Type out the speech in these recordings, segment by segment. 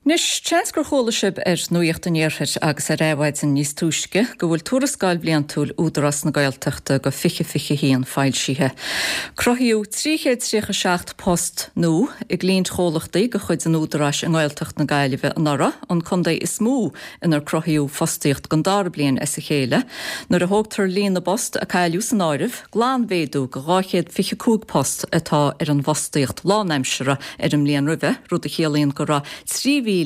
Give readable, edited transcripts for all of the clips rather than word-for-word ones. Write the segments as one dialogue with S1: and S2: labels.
S1: Anois, seans gur chuala sibh ar Nuacht an Iarthair agus ar Adhmhaidin níos túisce go bhfuil Tuarascáil Bhliantúil Údarás na Gaeltachta go 2021 foilsithe. Cruthaíodh 337 post nua i gcliaintchomhlachtaí de chuid an Údaráis i nGaeltacht na Gaillimhe anuraidh, an contae is mó inar cruthaíodh fostaíocht don dara bliain as a chéile. Nuair a thógtar líon na bpost a cailleadh san áireamh, glanmhéadú go 225 post atá ar an bhfostaíocht lánaimseartha ar an mbliain roimhe, rud a chiallaíonn go raibh 3,180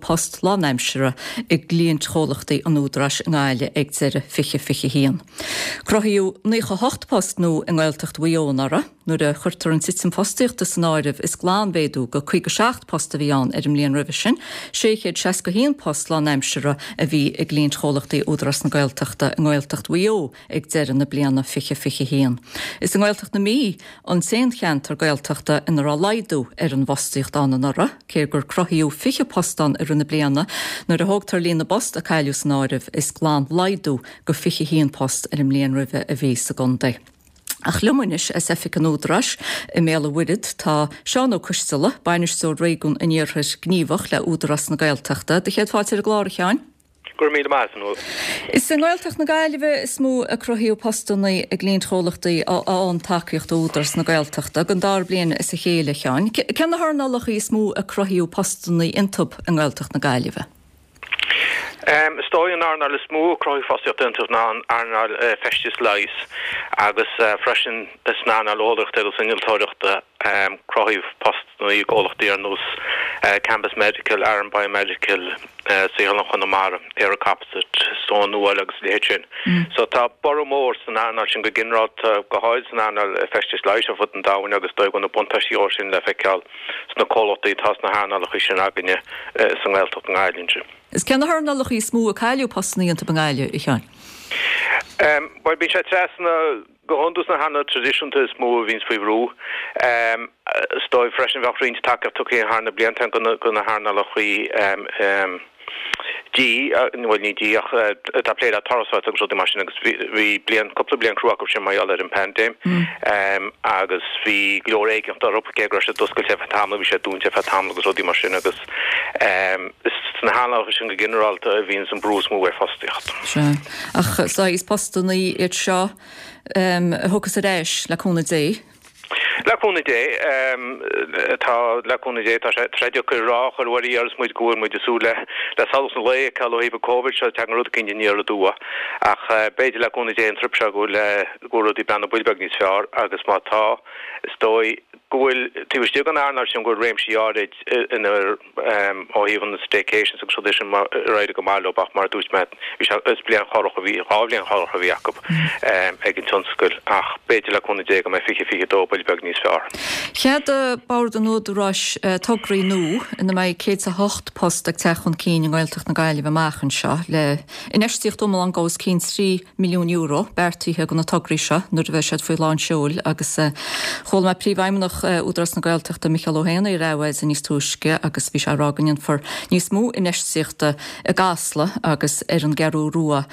S1: post lánaimseartha i gcliaintchomhlachtaí an Údaráis i nGaillimh ag deireadh 2021. Cruthaíodh 98 post nua i nGaeltacht Mhaigh Eo anuraidh. Nuair a chuirtear an titim fostaíochta san áireamh is glanmhéadú go 57 post a bhí ann ar an mbliain roimhe sin. 661 post lánaimseartha a bhí i gcliaintchomhlachtaí Údarás na Gaeltachta i nGaeltacht Mhaigh Eo ag deireadh na bliana 2021. Is i nGaeltacht na Mí an t-aon cheantar Gaeltachta ina raibh laghdú ar an bhfostaíocht ann anuraidh, cé gur cruthaíodh 20 post ann i rith na bliana. Nuair a thógtar líon na bpost a cailleadh san áireamh, is glanlaghdú go 21 post ar an mbliain roimhe a bhí sa gcontae. Ach liom anois as Oifig an Údaráis i mBéal an Mhuirthead tá Seán Ó Coisteala, Bainisteoir Réigiún an Iarthair Gníomhach le Údarás na Gaeltachta. Do chéad fáilte ar an gclár, a Sheáin.
S2: Go raibh míle maith agat, a Nuala.
S1: Is i nGaeltacht na Gaillimhe is mó a cruthaíodh postanna i gcliaintchomhlachtaí a fhaigheann tacaíocht ó Údarás na Gaeltachta, don dara bliain as a chéile, a Sheáin. Cé na hearnálacha is mó a cruthaíodh postanna iontu i nGaeltacht na Gaillimhe?
S2: Is dóigh an earnáil is mó a cruthaíodh fostaíocht iontu ná an earnáil feistis leighis agus freisin san earnáil eolaíochta agus innealtóireachta cruthaíodh postanna i gcomhlachtaí ar nós Cambus Medical, Aran Biomedical, Saotharlann Chonamara, ÉireComposite, Stone Nuáil agus a leithéid sin. So tá borradh mór san earnáil sin go ginearálta, go háirid san earnáil feistis leighis ar fud an domhain agus is dóigh go bhfuil na buntáistí ó sin le feiceáil sna comhlachtaí atá sna hearnálacha sin againne sa nGaeltacht i nGaillimh ansin.
S1: Is cé na hearnálacha is mó a cailleadh postanna iontu i nGaillimh, a Sheáin?
S2: Bhuel, bíonn sé trasna. Go hiondúil sna hearnálacha traidisiúnta is mó a bhíonns faoi bhrú. Is dóigh freisin bheadh roinnt tacaíocht tugtha thar na blianta do na hearnálacha dí, bhuel ní dí ach atá ag plé le turasóireacht agus rudaí mar sin agus bhí bliain, cúpla bliain crua acu sin mar gheall ar an bpaindéim agus bhí go leor éiginnteachta orthu cé go raibh siad oscailte ar feadh tamaill, bhí siad dúnta ar feadh tamaill agus rudaí mar sin agus is sna hearnálacha sin go ginearálta a bhíonns an brú is mó ar fostaíocht.
S1: Sea. Ach saghas postanna iad seo a thiocfas ar ais, le cúnamh Dé.
S2: Le cúnamh Dé, tá, le cúnamh Dé, tá sé, tá sé deacair a rá, ach ar uair agus muid go bhfuil muid ag súil le, le solas an lae a fheiceáil ó thaobh an Covid seo, tagann rud eicínt aniar aduaidh. Ach b'fhéidir le cúnamh Dé an trip seo go bhfuil, go bhfuil rudaí ag breathnú buille beag níos fearr agus má tá, is dóigh go bhfuil, taobh istigh den earnáil sin go bhfuil réimsí áirid inar, ó thaobh an staycations agus rudaí sin ar éirigh go maith leo ach mar a dúirt mé bhí sé is bliain chorrach a bhí 2 bhliain chorrach a bhí acu ag an tionscal ach b'fhéidir le cúnamh Dé go mbeidh 2022 buille beag níos fearr.
S1: Cheadaigh Bord an Údaráis tograí nua ina mbeidh 108 post ag teacht chun cinn i nGaeltacht na Gaillimhe amach anseo le infheistíocht iomlán os cionn €3 milliún beartaithe do na tograí seo nuair a bheidh siad faoi lán seoil agus chuala mé Príomhfheidhmeannach Údarás na Gaeltachta Micheál Ó hÉanaí ar Adhmhaidin níos túisce agus bhí sé ag rá go ndéanfar níos mó infheistíochta i gCasla agus ar an gCeathrú Rua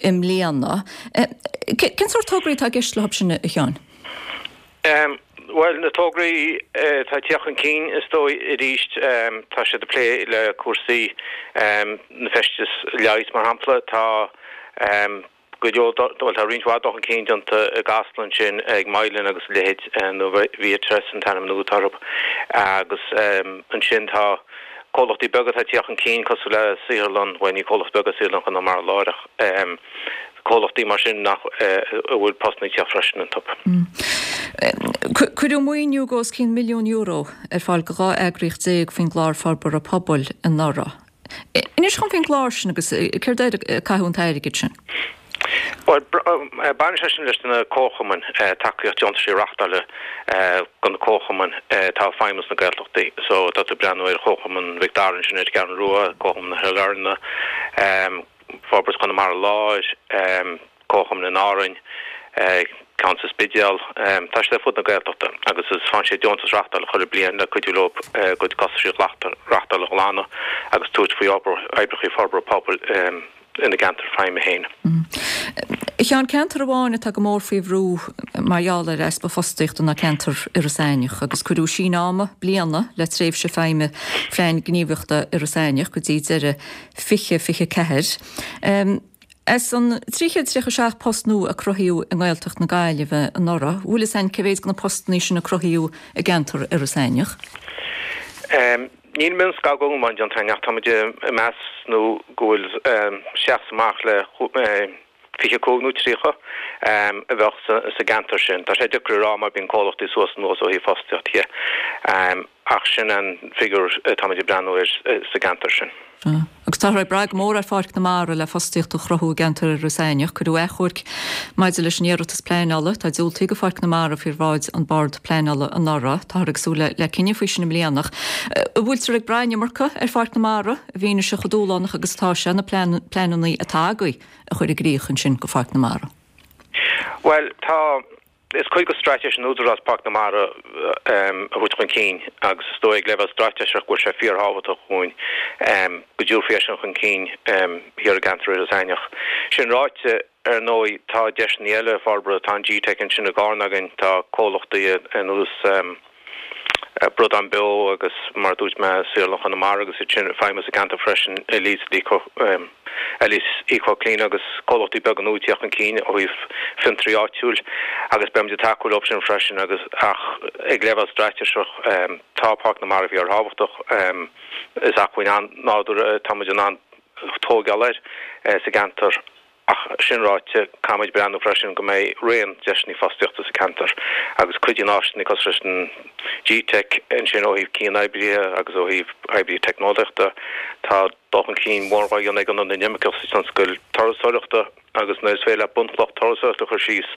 S1: i mbliana. Cén sórt tograí atá i gceist leo sin, a Sheáin?
S2: Bhuel, na tograí atá ag teacht chun cinn, is dóigh, arís, tá siad ag plé le cúrsaí na feistis leighis, mar shampla. Tá go leor, bhuel, tá roinnt mhaith dul chun cinn déanta i gCasla ansin ag Mylan agus a leithéid, nó Viatris an t-ainm nua atá orthu. Agus ansin tá comhlachtaí beaga atá ag teacht chun cinn cosúil le saotharlann, bhuel, ní comhlacht beag é Saotharlann Chonamara Láir ach comhlachtaí mar sin nach a bhfuil postanna ag teacht freisin iontu.
S1: Cuireadh maoiniú de os cionn €1,000,000 ar fáil do 12 eagraíocht faoin gClár Forbartha Pobail anuraidh. Inis dhom faoin gclár sin agus céard air a caitheadh an t-airgead sin.
S2: Bhuel, baineann sé sin leis na comharchumainn, tacaíocht deontais a reáchtáil do na comharchumainn atá ag feidhmiú sna Gaeltachtaí. So tá tú ag breathnú ar Chomharchumann Mhic Dara ansin ar an gCeathrú Rua, Comharchumann na Sailearna, Forbairt Chonamara Láir, Comharchumann in Árainn, ceann sa Spidéal. Tá siad ar fud na Gaeltachta agus is faigheann siad deontas reáchtála chuile bliain le cuidiú leo a gcuid costaisí reáchtála a ghlanadh agus tabhairt faoi oibreacha forbartha pobail ina gceantar feidhme féin.
S1: A Sheáin, ceantar amháin atá go mór faoi bhrú mar gheall ar easpa fostaíochta ná ceantar Iorras Aithneach agus cuireadh síneadh ama bliana le tréimhse feidhme Phlean Gníomhaíochta Iorras Aithneach go dtí deireadh 2024. As an 337 post nua a cruthaíodh i nGaeltacht na Gaillimhe anuraidh, bhfuil fhios a'inn cé mhéad de na postannaí sin a cruthaíodh i gceantar Iorras Aithneach?
S2: Níl mionscagadh iomlán déanta againn ach táimid ag meas nó go bhfuil seachas amach le 25 nó 30 a bheadh sa gceantar sin. Tá sé deacair a rá mar bíonn comhlachtaí suas anuas ó thaobh fostaíocht dhe ach sin an figiúr atáimid ag breathnú air sa gceantar sin.
S1: Agus táthar ag brath go mór ar Pháirc na Mara le fostaíocht a chruthú i gceantar Iorras Aithneach. Cuireadh achomharc maidir leis an iarratas pleanála atá diúltaithe do Pháirc na Mara faoi bhráid an Bord Pleanála anuraidh. Táthar ag súil le cinneadh faoi sin i mbliana. An bhfuiltear ag brath an iomarca ar Pháirc na Mara i bhfianaise chomh dúshlánach agus atá sé na pleananna atá agaibh a chur i gcrích ansin do Pháirc na Mara?
S2: Bhuel, tá. Is cuid de straitéis an Údaráis Páirc na Mara a thabhairt chun cinn agus is dóigh ag leibhéal straitéiseach go bhfuil sé fíorthábhachtach dhúinn go dtabharfaí é sin chun cinn thiar i gceantar Iorras Aithneach. Sin ráite, ar ndóigh, tá deiseanna eile forbartha, tá an GTeic ansin i gCarna againn, tá comhlachtaí ar nós Bradán Beo agus, mar a dúirt mé, Saotharlann Chonamara agus iad sin ag feidhmiú sa gceantar freisin, Elise Eco, Elise Eco Clean agus comhlachtaí beaga nua ag tíocht chun cinn ó thaobh fiontraí áitiúil agus beimid ag tacú leo sin freisin agus ach ag leibhéal straitéiseach tá Páirc na Mara fíorthábhachtach. Is acmhainn an-nádúrtha táimid in ann tóigeáil air sa gceantar. Ach sin ráite, caithfimid breathnú freisin go mbeidh raon deiseanna fostaíochta sa cheantar agus cuidíonn áiseanna cosúil leis an GTeic ansin ó thaobh cian-oibrithe agus ó thaobh oibrithe teicneolaíochta. Tá dul chun cinn mór á dhéanamh ag Ionad na nImirceach sa tionscal turasóireachta agus nuair is féidir leat bunchloch turasóireachta a chur síos,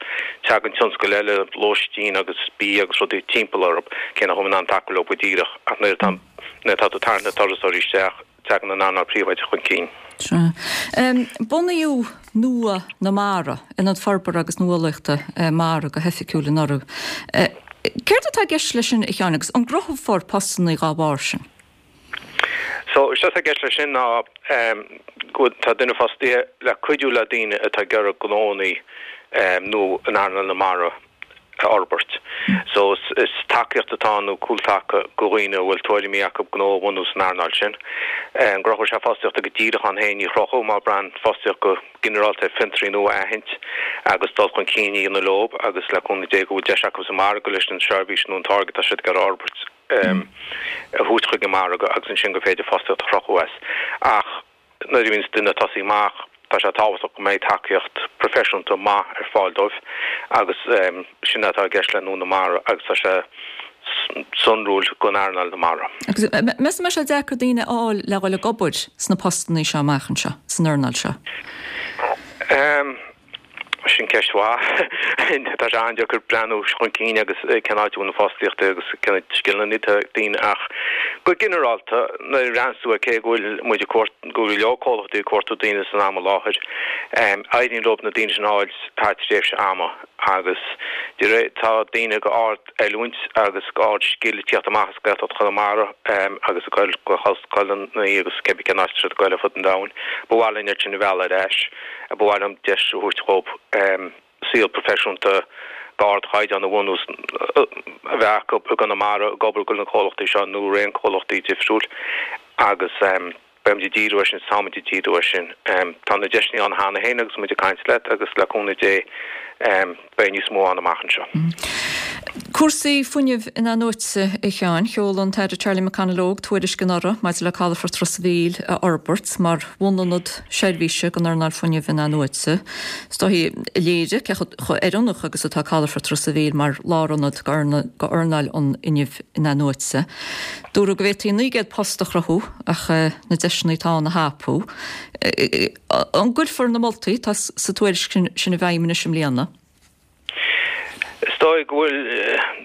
S2: tagann tionscail eile, lóistín agus bia agus rudaí timpeall orthu, cé nach bhfuil in ann tacú leo go díreach ach nuair atá tú ag tarraingt na turasóirí isteach, Tagann an earnáil phríobháideach chun cinn.
S1: Sea. Bunaíodh Nua na Mara, Ionad Forbartha agus Nuálaíochta Mara go hoifigiúil anuraidh. Céard atá i gceist leis sin, a Sheáin, agus an gcruthófar postanna dá bharr sin?
S2: So, is é atá i gceist leis sin ná go bhfuil, tá duine fostaithe le cuidiú le daoine atá ag iarraidh gnóanna nua in earnáil na mara a fhorbairt. So is tacaíocht atá ann nó cúltaca go dhaoine a bhfuil tuairimí acu gnó a bhunú san earnáil sin. An gcruthóidh sé fostaíocht go díreach ann féin? Ní chruthóidh mar braitheann fostaíocht go ginearálta ar fiontraí nua a aithint agus dul chun cinn a dhéanamh leo agus le cúnamh Dé go bhfuil deis acu sa mhargadh leis an seirbhís nó an táirge atá siad ag iarraidh a fhorbairt a thabhairt chuig an margadh agus ansin gur féidir fostaíocht a chruthú as. Ach. Nuair a bhíonns duine ag tosaí amach, tá sé tábhachtach go mbeidh tacaíocht proifisiúnta maith ar fáil dóibh agus sin atá i gceist le Nua na Mara agus tá sé sonrúil don earnáil na mara.
S1: Agus meas tú an mbeidh sé deacair daoine a fháil le dhul ag obair sna postannaí seo amach anseo, san earnáil seo?
S2: Sin ceist mhaith. Tá sé an-deacair breathnú chun cinn agus cén áit a bhfuil an fostaíocht agus cén scileanna atá ag daoine ach go ginearálta nuair a bhreathnaíonns tú ar cé go bhfuil muid ag cuartú, go bhfuil go leor comhlachtaí ag cuartú daoine san am i láthair, éiríonn leo na daoine sin a fháil thar tréimhse ama agus de réir, tá daoine go ard oiliúint agus ard-scil ag tíocht amach as Gaeltacht Chonamara agus ag goil go hollscoileanna agus cébí cén áit atá siad ag goil ar fud an domhain. Ba mhaith linn iad sin a mhealladh ar ais. Ba mhaith liom deis a thabhairt dhóibh saol proifisiúnta d'ardchaighdeán a bhunú, a bheith acu i gConamara ag obair do na comhlachtaí seo nó raon comhlachtaí difriúil agus. Beimid ag díriú air sin, táimid ag díriú air sin. Tá na deiseanna ann cheana féin agus muid ag caint leat agus le cúnamh Dé beidh níos mó ann amach anseo.
S1: Cúrsaí fuinnimh in-athnuaite, a Sheáin. Sheol an tAire Charlie McConalogue tuairisc anuraidh maidir le calafort Ros a' Mhíl a fhorbairt mar bhunionad seirbhíse don earnáil fuinnimh in-athnuaite. Is dóigh a léirigh cé chomh oiriúnach agus atá calafort Ros a' Mhíl mar lárionad d'earnáil an fhuinnimh in-athnuaite. Dúradh go bhféadfaí 900 post a chruthú ach na deiseanna atá ann a thapú. An gcuirfear na moltaí atá sa tuairisc sin i bhfeidhm anois i mbliana?
S2: Is dóigh go bhfuil,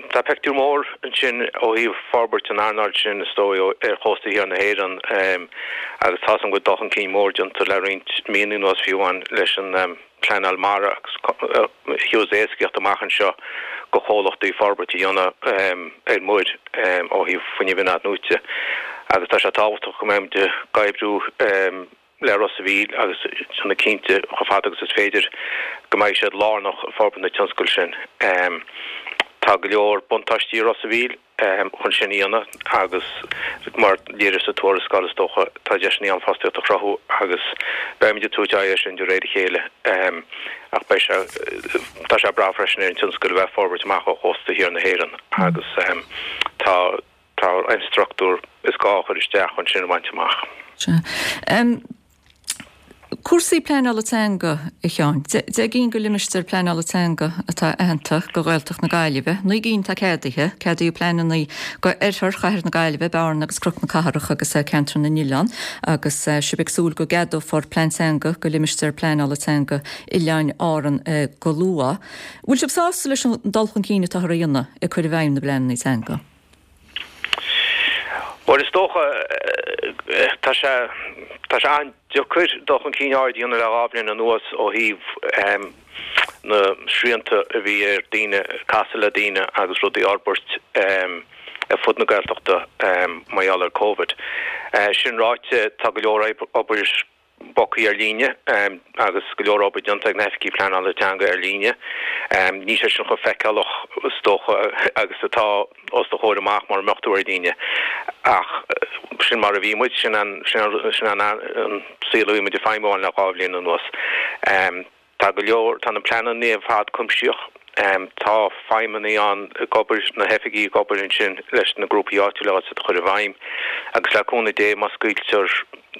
S2: tá pictiúr mór ansin ó thaobh forbairt an earnáil sin is dóigh ar chósta thiar na hÉireann agus tá 's agam go bhfuil dul chun cinn mór déanta le roinnt míonna anuas fiú amháin leis an pleanáil mara agus thabharfas éascaíocht amach anseo go chomhlachtaí forbairt a dhéanamh ar muir ó thaobh fuinneamh in-athnuaite agus tá sé tábhachtach go mbeimid ag oibriú. le Ros a' Mhíl agus déanamh cinnte chomh fada agus is féidir go mbeidh siad lárnach i bhforbairt na tionscail sin. Tá go leor buntáistí i Ros a' Mhíl chun sin a dhéanamh agus mar léiríodh sa tuarascáil is dócha tá deiseanna ann fostaíocht a chruthú agus beimid ag tabhairt aghaidh air sin de réir a chéile ach beidh sé tá sé breá freisin ar an tionscal a bheith ag forbairt amach ó chósta thiar na hÉireann agus tá Tá an struchtúr is gá a chur isteach chun sin a bhaint amach.
S1: Sea. Cúrsaí pleanála teanga, a Sheáin. 10 gcinn de limistéir pleanála teanga atá aitheanta do Ghaeltacht na Gaillimhe. 9 gcinn atá ceadaithe. Ceadaíodh pleananna do oirthear Chathair na Gaillimhe, Bearna agus Cnoc na Cathrach agus Ceantar na nOileán agus sibh ag súil go gceadófar plean teanga do limistéar pleanála teanga Oileáin Árann go luath. Bhfuil sibh sásta leis an dul chun cinn atáthar a dhéanamh ag cur i bhfeidhm na bpleananna teanga?
S2: Bhuel, is dócha, tá sé, tá sé an-deacair dul chun cinn áirid a dhéanamh le 2 bhliain anuas ó thaobh na srianta a bhí ar daoine casadh le daoine agus rudaí a fhorbairt ar fud na Gaeltachta mar gheall ar Covid. Sin ráite, tá go leor obair bogtha ar líne agus go leor obair déanta ag na hoifigigh pleanála teanga ar líne. Níl sé sin chomh feiceálach is dócha agus atá os do chomhair amach mura mbeadh tú ar líne. Ach sin mar a bhí muid, sin an sin an saol a bhí muid ag feidhmiú ann le 2 bhliain anuas. Tá go leor, tá na pleananna ar fad cuimsitheach. Tá feidhmeannaigh ann ag obair, na hoifigigh ag obair ansin leis na grúpaí áitiúla agus iad a chur i bhfeidhm. Agus le cúnamh Dé má scaoiltear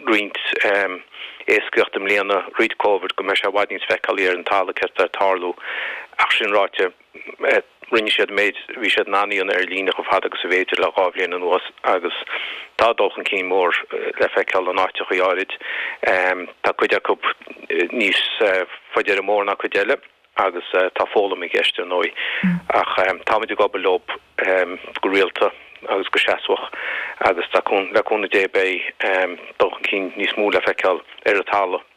S2: roinnt éascaíocht i mbliana roimh Covid go mbeidh sé i bhfad níos feiceálaí ar an talamh céard atá ag tarlú. Ach sin ráite, Rinne siad an méid a bhí siad in ann a dhéanamh ar líne chomh fada agus ab fhéidir le 2 bhliain anuas agus tá dul chun cinn mór le feiceáil in áiteachaí áirid. Tá cuid acu níos faide ar an mbóthar ná cuid eile agus tá foghlaim i gceist ar ndóigh ach táimid ag obair leo go rialta agus go seasmhach agus le cúnamh Dé beidh dul chun cinn níos mó le feiceáil ar an talamh.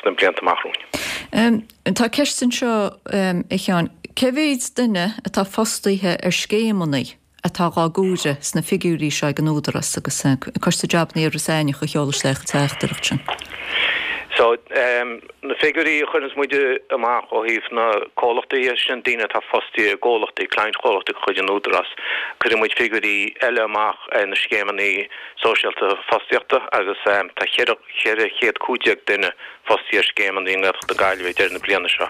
S2: sna blianta amach
S1: romhainn. Tá ceist anseo, a Sheáin. Cé mhéid duine atá fostaithe ar scéimeanna atá dhá gcomhaireamh sna figiúirí seo ag an Údarás agus Coiste Jabanna Iorras Aithneach a sheol isteach an teachtaireacht sin?
S2: So, na figiúirí a chuireanns muid amach ó thaobh na comhlachtaí, sin daoine atá fostaithe i gcomhlachtaí, cliantchomhlachtaí de chuid an Údarás. Cuireann muid figiúirí eile amach ar na scéimeanna sóisialta fostaíochta agus tá 415 duine fostaithe ar scéimeanna i nGaeltacht na Gaillimhe ag deireadh na bliana seo.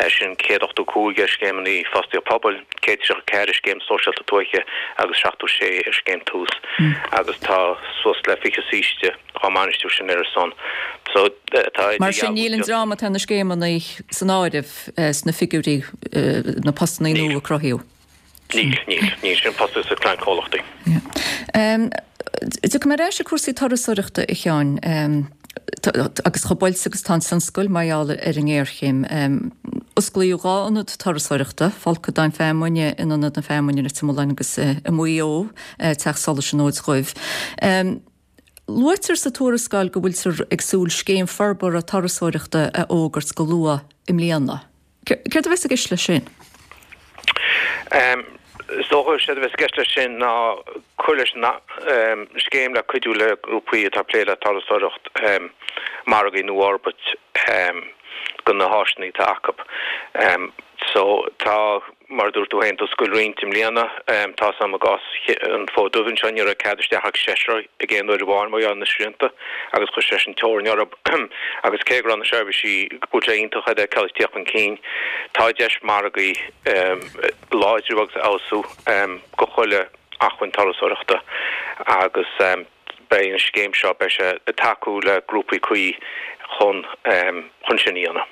S2: Sin 185 ar scéimeanna fostaíocht pobail, 134 ar scéim sóisialta tuaithe agus 76 ar scéim Tús agus tá suas le 20 saoiste á mbainistiú sin ar a son.
S1: So tá Mar sin níl an dream atá ar na scéimeanna san áireamh sna figiúirí na postanna nua a cruthaíodh.
S2: Níl, níl. Níl. Sin fostaithe sa cliantchomhlachtaí.
S1: Tiocfaidh mé ar ais ar cúrsaí turasóireachta, a Sheáin, agus chomh buailte agus atá an tionscal mar gheall ar an ngéarchéim. Osclaíodh 2 ionad turasóireachta, Folcadán Feamainne in Ionad na Feamainne i Leitir Mealláin agus i Maigh Eo, Teach Solais an Fhóid Dhuibh. Luaitear sa tuarascáil go bhfuiltear ag súil scéim forbartha turasóireachta a fhógairt go luath i mbliana. Céard a bheas i gceist leis sin?
S2: Is dócha séard a bheas i gceist leis sin ná cur leis an scéim le cuidiú le grúpaí atá ag plé le turasóireacht margaí nua a fhorbairt do na háiseanna atá acu. So tá. Mar a dúirt tú féin, d'oscail roinnt i mbliana. Tá's a'm i gcás an Fód Dubh anseo, ní raibh cead isteach ach seisear ag aon uair amháin mar gheall ar na srianta agus chuir sé sin teorainn orthu. Agus cé go raibh na seirbhísí, go bhfuil sé iontach iad a fheiceáil ag tíocht chun cinn, tá deis margaí a láidriú agus a fheabhsú do chuile acmhainn turasóireachta agus beidh an scéim seo, beidh sé ag tacú le grúpaí cuí chun chun sin a dhéanamh.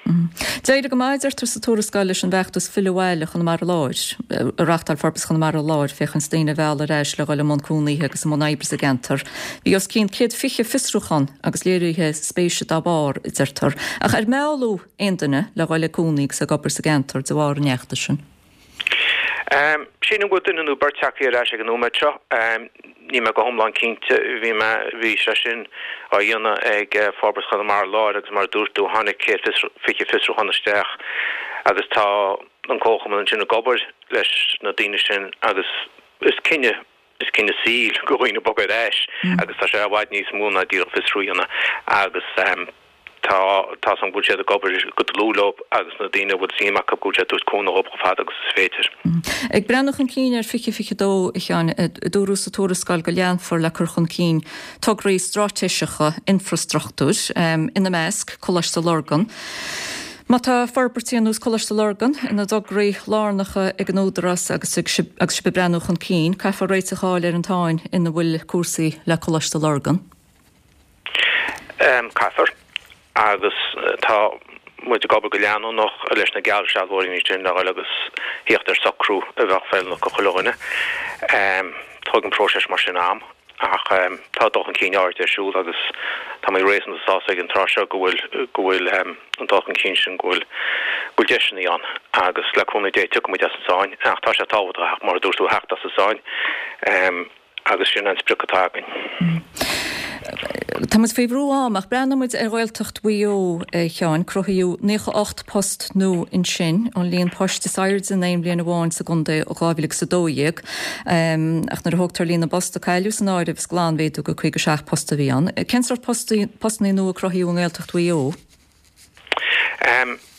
S1: D'éirigh go maith, a deirtear sa tuarascáil, leis an bhfeachtas Fill Abhaile Chonamara Láir, a reáchtáil Forbairt Chonamara Láir féachaint daoine a mhealladh ar ais le dhul i mbun cónaithe agus i mbun oibre sa gceantar. Bhí os cionn 120 fiosrúchán agus léirithe spéise dá bharr, a deirtear. Ach ar mealladh aon duine le dhul ag cónaí agus ag obair sa gceantar de bharr an fheachtais sin?
S2: Sílim go bhfuil duine nó beirt tagtha ar ais ag an nóiméad seo. Níl mé go hiomlán cinnte. Bhí mé, bhí sé sin á dhéanamh ag Forbairt Chonamara Láir agus mar a dúirt tú, tháinig 120 fiosrúchán isteach agus tá an Comharchumann ansin ag obair leis na daoine sin agus is cinneadh. Is cinneadh saoil do dhaoine bogadh ar ais agus tá sé i bhfad níos mó ná díreach fiosrú a dhéanamh agus tá tá 's agam go bhfuil siad ag obair go dlúth leo agus na daoine a bhfuil suim acu go bhfuil siad ag tabhairt cúnamh dhóibh chomh fada agus is féidir.
S1: Ag breathnú chun cinn ar 2022, a Sheáin, dúradh sa tuarascáil go leanfar le cur chun cinn tograí straitéiseacha infreastruchtúir, ina measc, Coláiste Lurgan. Má tá forbairtí ar nós Coláiste Lurgan ina dtograí lárnacha ag an Údarás agus sibh ag breathnú chun cinn, caithfear réiteach a fháil ar an tsáinn ina bhfuil cúrsaí le Coláiste Lurgan.
S2: Caithfear. Agus tá muid ag obair go leanúnach leis na geallsealbhóirí ansin le dhul agus thíocht ar socrú a bheadh feiliúnach do chuile dhuine. Tógann próiseas mar sin am ach tá dul chun cinn áirid ar siúl agus tá mé réasúnta sásta ag an tráth seo go bhfuil go bhfuil an dul chun cinn sin go bhfuil go bhfuil deiseanna ann agus le cúnamh Dé tiocfaidh muid as an sáinn ach tá sé tábhachtach mar a dúirt tú a theacht as an sáinn. Agus sin an sprioc atá againn.
S1: Tá muid faoi bhrú ama, ach breathnóidh muid ar Ghaeltacht Mhaigh Eo, a Sheáin. Cruthaíodh 98 post nua ansin, an líon poist is airde in aon bhliain amháin sa gcontae ó 2012. Ach nuair a thógtar líon na bpost a cailleadh san áireamh, is glanmhéadú de 57 post a bhí ann. Cén sórt postanna nua a cruthaíodh i nGaeltacht Mhaigh Eo?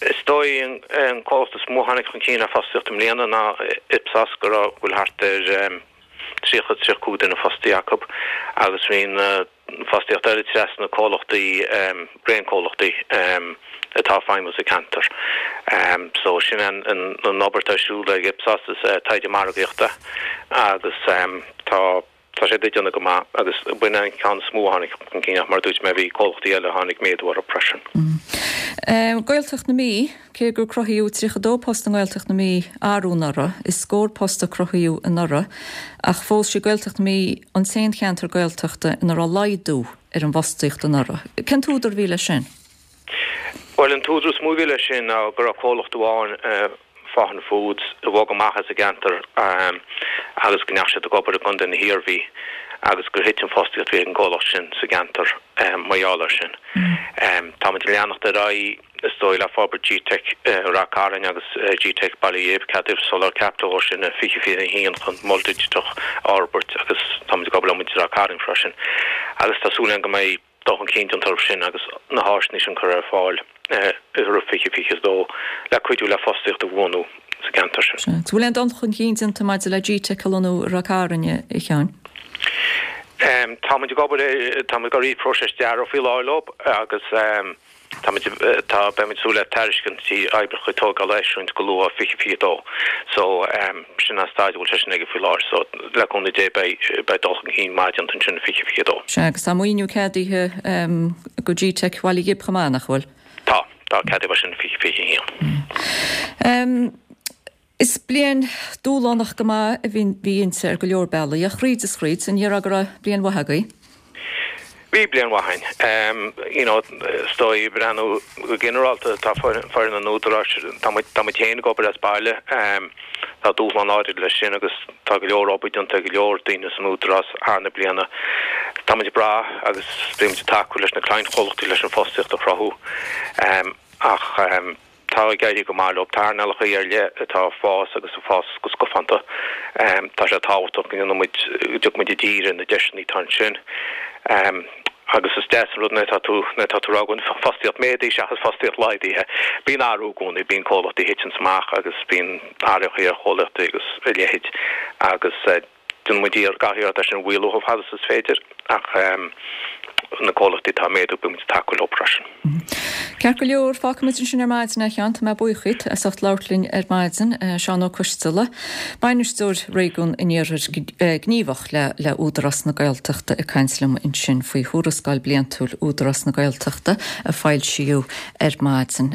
S2: Is dóigh an comhlacht is mó a tháinig chun cinn ar fostaíocht i mbliana ná Ipsos, go raibh, go bhfuil thart ar 30, 35 duine fostaithe acu agus bhí na fostaíocht eile trasna comhlachtaí, raon comhlachtaí atá ag feidhmiú sa cheantar. So sin an an obair atá ar siúl ag Ipsos is taighde margaíochta agus tá Tá siad ag déanamh go maith agus b'in an ceann is mó a tháinig chun cinn ach mar a dúirt mé bhí comhlachtaí eile a tháinig méadú orthu freisin.
S1: Gaeltacht na Mí, Cé gur cruthaíodh 32 post i nGaeltacht na Mí arú anuraidh, is scór post a cruthaíodh anuraidh ach fós sí Gaeltacht na Mí an t-aon cheantar Gaeltachta ina raibh laghdú ar an bhfostaíocht anuraidh. Cén t-údar a bhí leis sin?
S2: Bhuel an t-údar is mó a bhí leis sin ná go raibh comhlacht amháin, Faughan Foods, a bhog amach as an gceantar agus go ndeachaigh siad ag obair i gContae na hIarmhí agus gur thit an fostaíocht a bhí ag an gcomhlacht sin sa gceantar mar gheall air sin. Táimid ag leanacht ar aghaidh, is dóigh, le forbairt GTeic Ráth Cairn agus GTeic Baile Ghib, ceadaíodh soláthar caipitil dhó sin i 2021 chun mol digiteach a fhorbairt agus táimid ag obair le muintir Ráth Cairn freisin agus tá súil againn go mbeidh dul chun cinn déanta orthu sin agus na háiseanna sin curtha ar fáil roimh 2022 le cuidiú le fostaíocht a bhuanú sa gceantar sin.
S1: Sea. Bhfuil aon dul chun cinn déanta maidir le GTeic a lonnú i Ráth Cairn, a Sheáin?
S2: Tá muid ag obair, tá muid ag rith próiseas dearaidh faoi láthair leo agus Táimid, tá, beimid ag súil le tairiscintí oibreacha tógála a eisiúint go luath 2022. So, sin an staid a bhfuil sé sin aige faoi láthair. So, le cúnamh Dé beidh, beidh dul chun cinn maith déanta ansin i 2022.
S1: Sea, agus tá maoiniú ceadaithe do GTeic Bhaile Ghib chomh maith, nach bhfuil?
S2: Tá, tá, ceadaíodh é sin i 2021.
S1: Is bliain dúshlánach go maith a bhí inti ar go leor bealaí, ach thríd is thríd, an ndéarfá go raibh bliain mhaith agaibh?
S2: Bhí bliain mhaith againn. You know, is dóigh, ag breathnú go ginearálta, tá foireann an Údaráis, tá muid, tá muid féin ag obair as baile, tá dúshlán áirid leis sin agus tá go leor obair déanta ag go leor daoine san Údarás thar na bliana. Tá muid ag brath agus bíonn muid ag tacú leis na cliantchomhlachtaí leis an fostaíocht a chruthú ach, Tá ag éirí go maith leo. Tá earnálacha ar leith atá ag fás agus ag fás go scafánta. Tá sé tábhachtach go ndéanfaidh muid, go dtiocfaidh muid i dtír ar na deiseanna atá ansin. Agus is deas an rud nuair atá tú, nuair atá tú ag rá go bhfuil fostaíocht méadaithe seachas fostaíocht laghdaithe. Bíonn athrú i gcónaí, bíonn comhlachtaí a thiteanns amach agus bíonn athruithe ar chomhlachtaí agus a leithéid agus. Déanann muid iarracht gach iarracht é sin a mhaolú chomh fada is is féidir ach na comhlachtaí atá ag méadú beidh muid ag tacú leo freisin.
S1: Ceart go leor, fágfaidh muid ansin ar maidin é, a Sheáin. Tá mé buíoch díot as ucht labhairt linn ar maidin. Seán Ó Coisteala, Bainisteoir Réigiún an Iarthair Gníomhach le Údarás na Gaeltachta ag caint liom ansin faoi Thuarascáil Bliantúil Údarás na Gaeltachta a foilsíodh ar maidin.